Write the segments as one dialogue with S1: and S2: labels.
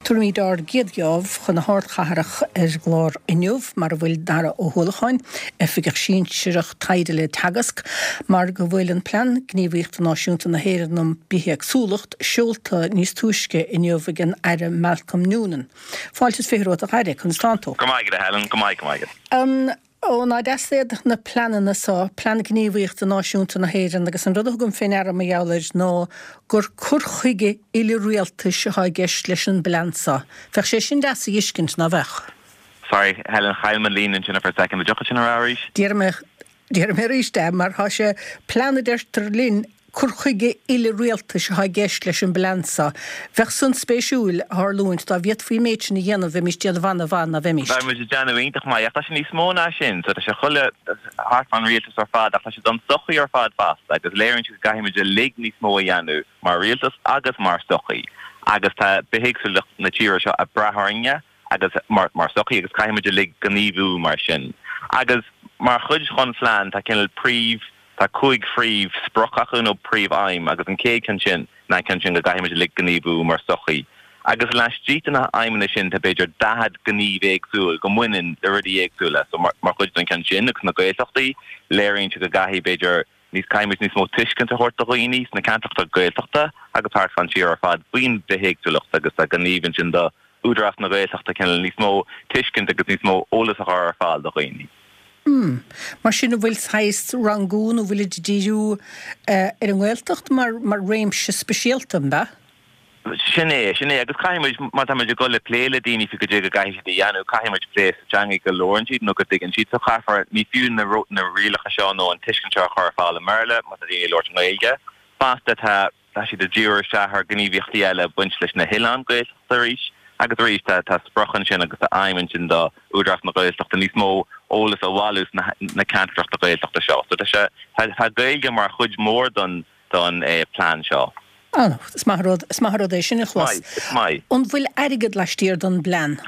S1: Tabharfaimid ár gcéad gheábh chun na hardchathrach ar an gclár inniu, mar a bhfuil Dara Ó hUallacháin, Oifigeach Sinsearach Taighde le Teagasc, mar go bhfuil an Plean Gníomhaíochta Náisiúnta na hÉireann um Bithéagsúlacht seolta níos túisce inniu ag an Aire Malcolm Noonan. Fáilte is 20 romhat a Aire, conas tánn tú?
S2: Go maith agat a Helen, go maith, go maith agat.
S1: Ó, ná deas iad na pleananna so, Plean Gníomhaíochta Náisiúnta na hÉireann, agus an rud a thugaim fé ndeara mar gheall air ná gur cur chuige uile-rialtais atá i gceist leis an bplean so. Bheadh sé sin deas a dh'fheiscint, ná bheadh?
S2: Sorry, Helen, chaill mé an líne ansin for a second. An dtiocfadh sin a rá arís?
S1: Déarfaidh mé, déarfaidh mé arís é, mar tá sé, plean a deirtear linn, Cur chuige uile-rialtais atá i gceist leis an bplean seo. Bheadh san spéisiúil a tharlúint dá bhféadfaí an méid sin a dhéanamh, bheimís déanamh ana-mhaith, ná bheimís?
S2: Bheadh muid ag déanamh iontach maith, ach tá sé níos mó ná sin. So tá sé chuile thart fán rialtas ar fad, ach tá sé don sochaí ar fad fosta, agus léiríonn sé go gcaithfidh muid uilig níos mó a dhéanamh mar rialtas agus mar sochaí. Agus tá bithéagsúlacht na tíre seo ag brath orainne agus mar mar sochaí agus caithfidh muid uilig gníomhú mar sin. Agus mar chuid dhon phlean tá cineál príomh Tá 5 phríomh sprioc acu nó príomh aidhm agus an chéad cheann sin ná an ceann sin go gcaithfidh muid uilig gníomhú mar sochaí. Agus laistigh de na haidhmeanna sin tá b'fhéidir 40 gníomh éagsúil go mbaineann le rudaí éagsúla. So mar chuid den cheann sin agus na Gaeltachtaí léiríonn sé go gcaithfidh b'fhéidir níos caithfidh muid níos mó tuiscint a thabhairt do dhaoine sna ceantracha Gaeltachta agus thart fán tír ar fad faoin bhithéagsúlacht agus tá gníomh ansin do Údarás na Gaeltachta cineál níos mó tuiscint agus níos mó eolas a chur ar fáil do dhaoine.
S1: Hmm. Mar sin an bhfuil saghas rangú nó bhfuilid ag díriú ar an nGaeltacht mar mar réimse speisialta, an ea?
S2: Sin é, sin é. Agus caithfidh muid, má tá muid ag dul le plé le daoine faoi goidé go gcaithfidh siad a dhéanamh, caithfidh muid plé sa teanga go labhrann siad nó go dtuigeann siad. So caithfear, ní fiú na na rialacha seo nó an tuiscint seo a chur ar fáil i mBéarla má tá daoine ag labhairt i nGaeilge. Fosta tá Tá siad ag díriú isteach ar ghníomhaíochtaí eile ag baint leis na hoileáin Gaeltachta arís agus arís tá tá sprioc ansin agus tá aidhm ansin do Údarás na Gaeltachta níos mó eolas a bhailiú sna na ceantracha Gaeltachta seo. So tá sé tá tá Gaeilge mar chuid mhór don don plean seo.
S1: Ah, is maith an rud, is maith an rud é sin a
S2: chlos. Is maith, is maith.
S1: An bhfuil airgead laistiar don bplean?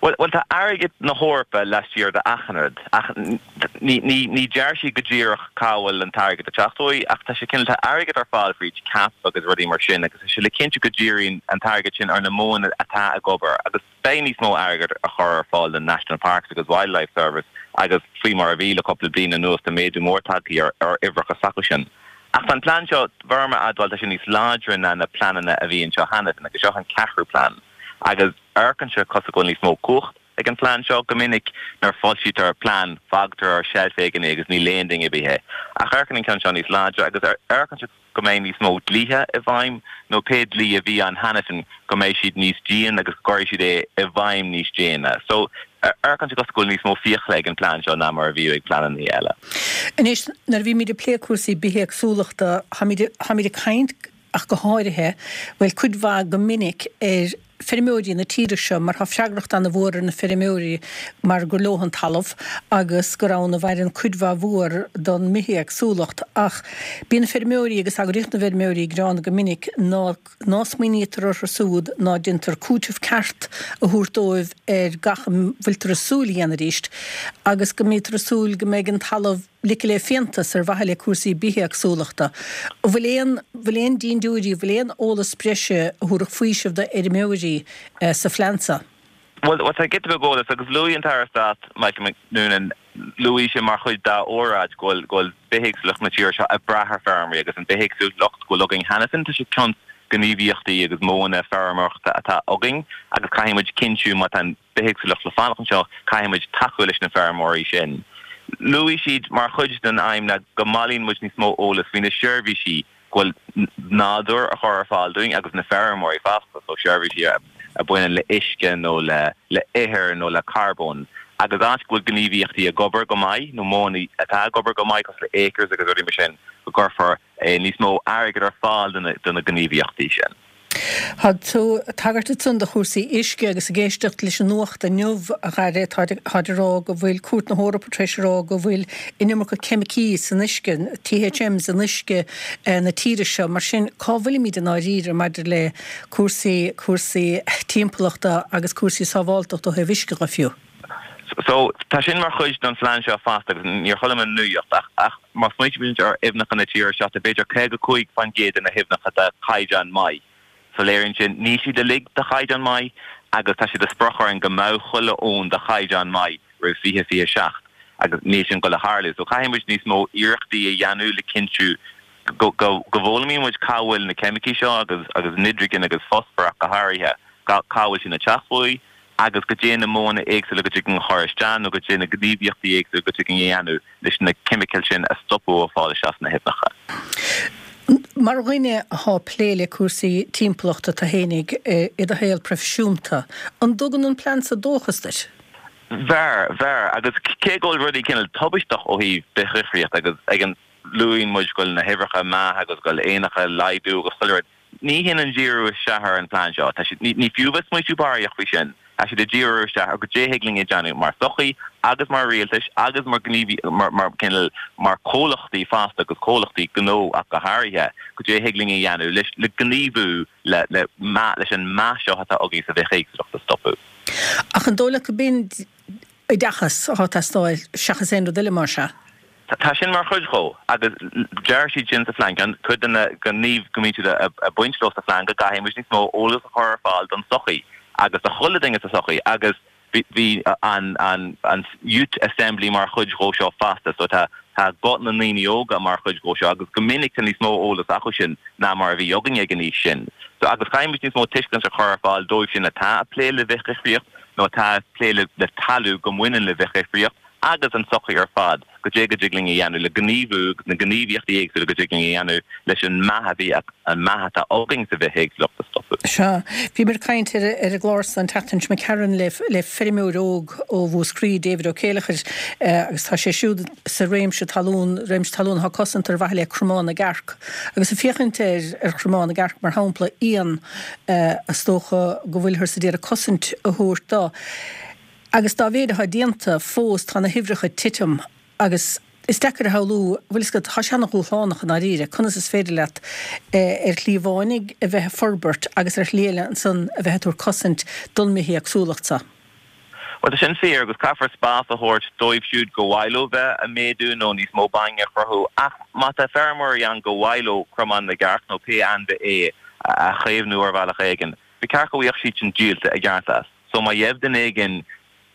S2: Bhuel, bhuel, tá airgead na hEorpa laistiar de achan rud, ach ní, ní, ní deir siad go díreach cá bhfuil an t-airgead ag teacht uaidh, ach tá sé cineál, tá airgead ar fáil fríd CAP agus rudaí mar sin agus tá sé le cinntiú go díríonn an t-airgead sin ar na modhanna atá ag obair agus beidh níos mó airgead á chur ar fáil don National Parks agus Wildlife Service agus faoi mar a bhí le cúpla bliain anuas tá méadú mór tagtha ar, ar uimhreacha s'acu sin. Ach tá an plean seo, bheirim a admháil, tá sé níos láidre ná na pleananna a bhí anseo cheana féin agus seo an ceathrú plean agus. Amharcann sé cosúil go bhfuil níos mó cumhacht ag an phlean seo. Go minic nuair a foilsítear plean fágtar ar sheilf éigin é agus ní léann duine ar bith é. Ach amharcann an ceann seo níos láidre agus amharcann sé go mbeidh níos mó dlíthe i bhfeidhm nó pé dlí a bhí ann cheana féin go mbeidh siad níos dian agus go gcuirfidh siad é i bhfeidhm níos déine. So amharcann sé cosúil go bhfuil níos mó fiacla ag an phlean seo ná mar a bhíodh ag pleananna eile.
S1: Anois nuair a bhímid ag plé cúrsaí bithéagsúlachta táimid ag caint ach go háirithe, bhuel, cuid mhaith go minic ar feirmeoirí na tíre seo mar tá freagracht ana-mhór ar na feirmeoirí mar gur leo an talamh agus gur ann a mhaireann cuid mhaith mhór don mbithéagsúlacht ach bíonn feirmeoirí agus eagraíocht na bhfeirmeoirí ag gearán go minic ná ná smaoinítear orthu siúd ná déantar cúiteamh ceart a thabhairt dóibh ar gach a bhfuiltear ag súil a dhéanamh arís agus go mbítear ag súil go mbeidh an talamh ligthe le fiántas ar mhaithe le cúrsaí bithéagsúlachta. An bhfuil aon, bhfuil aon dindiúirí, bhfuil aon eolas breise a thabharfadh faoiseamh do fheirmeoirí sa phlean seo?
S2: Bhuel, tá giota beag eolais agus luaigh an tAire Stáit Michael Noonan, luaigh sé mar chuid dá óráid go bhfuil, go bhfuil bithéagsúlacht na tíre seo ag brath ar feirmeoirí agus an bithéagsúlacht go bhfuil againn cheana féin, tá sé cionn gníomhaíochtaí agus modhanna feirmeoireachta atá againn agus caithfidh muid cinntiú má tá an bithéagsúlacht le fanacht anseo, caithfidh muid tacú leis na feirmeoirí sin. Luaigh siad mar chuid den aidhm ná go mbailíonn muid níos mó eolas faoi na seirbhísí go bhfuil nádúr a chur ar fáil dúinn agus na feirmeoirí fosta, so seirbhísí a bhaineann le uisce nó le le ithir nó le carbón. Agus áit go bhfuil gníomhaíochtaí ag obair go maith nó modhanna atá ag obair go maith cosúil le Acres agus rudaí mar sin, go gcuirfear níos mó airgid ar fáil do na gníomhaíochtaí sin.
S1: Tá tú ag tagairt ansan do chúrsaí uisce agus ag éisteacht leis an nuacht inniu, a Dhaire, táid ag rá go bhfuil Cúirt na hEorpa tar éis a rá go bhfuil an iomarca ceimicí san uisce, THMs in uisce na tíre seo. Mar sin, cá bhfuilimid i ndáiríre maidir le cúrsaí, cúrsaí timpeallachta agus cúrsaí sábháltachta ó thaobh uisce dhe fiú?
S2: So, tá sin mar chuid den phlean seo fosta agus níor chuala mé an nuacht ach, ach má smaoitímid ar aibhneacha na tíre seo, tá b'fhéidir 55% de na haibhneacha de chaighdeán maith. So léiríonn sin níl siad uilig de chaighdeán maith agus tá sé de sprioc orainn go mbeadh chuile abhainn de chaighdeán maith roimh 2027 agus níl sin ag dul a tharlú. So caithfidh muid níos mó iarrachtaí a dhéanamh le cinntiú go bhfoghlaimíonn muid cá bhfuil na ceimicí seo agus agus nitrigin agus fosfar ach go háirithe, cá bhfuil sin ag teacht uaidh agus goidé na modhanna éagsúla go dtig linn a chur isteach nó goidé na gníomhaíochtaí éagsúla go dtig linn a dhéanamh leis na ceimicil sin a stopadh ó fáil isteach sna haibhneacha.
S1: Mar dhuine athá plé le cúrsaí timpeallachta tú fhéinig i do shaol proifisiúnta, an dtugann an plean so dóchas duit?
S2: Bheir, bheir. Agus cé go bhfuil rudaí cineál tubaisteach ó thaobh bithdhifríocht agus ag an luaíonn muid go bhfuil na huimhreacha ag meath agus go bhfuil éanacha ag laghdú agus chuile rud, Ní shin an díriú isteach ar an phlean seo. Tá siad, ní fiú bheith smaoitiú barraíocht faoi sin. Tá siad ag díriú isteach ar goidé thig linn a dhéanamh mar sochaí agus mar rialtais agus mar gníomhaí, mar, mar cineál, mar comhlachtaí fosta agus comhlachtaí gnó ach go háirithe, goidé thig linn a dhéanamh leis, le gníomhú le, le meath, leis an meath seo atá againn sa bhithéagsúlacht a stopadh.
S1: Ach an dóigh leat go b'in oideachas atá ag teastáil seachas aon rud eile mar sea?
S2: Tá sin mar chuid dhó agus deir siad sin sa phlean, ceann, cuid de na gníomh go mbíonn siad ag baint leo sa phlean go gcaithfidh muid níos mó eolas a chur ar fáil don tsochaí agus do chuile duine sa tsochaí agus bhí an an an Youth Assembly mar chuid dhó seo fosta so tá tá guth na ndaoine óga mar chuid dhó seo agus go minic tá níos mó eolas acu sin ná mar a bhí againne ag an aois sin. So agus caithfidh muid níos mó tuiscint a chur ar fáil dóibh sin atá ag plé le bithdhifríocht nó atá ag plé le talamh go mbaineann le bithdhifríocht agus an tsochaí ar fad, goidé go dtig linn a dhéanamh le gníomhú agus na gníomhaíochtaí éagsúla go dtig linn a dhéanamh leis an meath a bhí, an meath atá againn sa bhithéagsúlacht a stopadh.
S1: Sea. Bhíomar ag caint ar an gclár san an tseachtain seo imigh tharainn le le feirmeoir óg ó Mhúscraí, David Ó Céileachair, agus tá sé siúd sa réimse talún, réimse talún atá cosanta ar mhaithe le Cromán na gCearc. Agus ag féachaint ar ar Chromán na gCearc mar shampla, éan is dócha go bhfuilthear sa d'iarraidh cosaint a thabhairt dó. Agus dá mhéid atá déanta, fós tá na huimhreacha ag titim agus is deacair a shamhlú, bhfuil fhios agat, tá sé ana-dhúshlánach i ndáiríre, conas is féidir leat ar shlí amháin a bheith ag forbairt agus ar shlí eile ansan a bheith ag tabhairt cosaint don mbithéagsúlacht so.
S2: Bhuel, tá sin fíor agus caithfear spás a thabhairt dóibh siúd go mhaith leo bheith ag méadú nó níos mó bainne a chruthú ach má tá feirmeoirí ann go mhaith leo cromán na gcearc nó pé ainmhí é a chaomhnú ar bhealach éigin, ba cheart go bhfaigheadh siad sin díolta i gceart as. So má gheibh duine éigin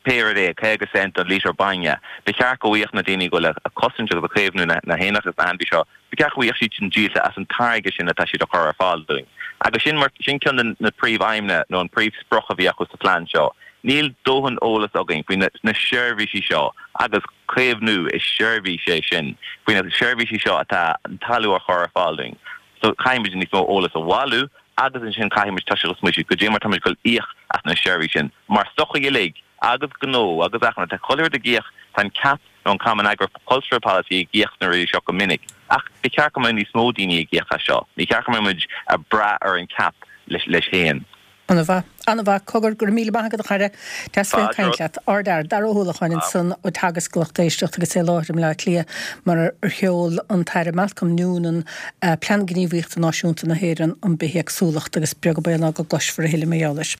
S2: pé rud é, 50 cent don lítear bainne, ba cheart go bhfaigheadh na daoine go bhfuil ag cosaint agus ag caomhnú na héanacha agus na hainmhí seo, ba cheart go bhfaigheadh siad sin díolta as an táirge sin atá siad a chur ar fáil dúinn. Agus sin mar, sin ceann de na príomh-aidhmeanna nó an príomh-sprioc a bhí acu sa phlean seo. Níl dóthain eolas againn faoi na na seirbhísí seo agus caomhnú, is seirbhís é sin, faoi na seirbhísí seo atá an talamh a chur ar fáil dúinn. So caithfidh muid níos mó eolas a bhailiú agus ansin caithfidh muid toiseacht ag smaoitiú goidé mar tá muid ag dul íoc as na seirbhísí sin mar sochaí uilig agus gnó agus achan rud. Tá chuile rud ag íoc, tá an CAP nó an Common Agricultural Policy ag íoc sna rudaí seo go minic ach ba cheart go mbeadh níos mó daoine ag íoc as seo. Ní cheart go mbeadh muid ag brath ar an CAP leis féin.
S1: An-mhaith. An-mhaith. Cogar, go raibh míle maith agat a chara. Deas bheith ag caint leat. Ardfhear. Dara Ó hUallacháin ansan ó Teagasc a lucht éisteachta agus é i láthair i mBleá Cliath mar ar sheol an tAire Malcolm Noonan Plean Gníomhaíochta Náisiúnta na hÉireann um Bithéagsúlacht agus beag an baol ná go gcloisfear a thuilleadh mar gheall air.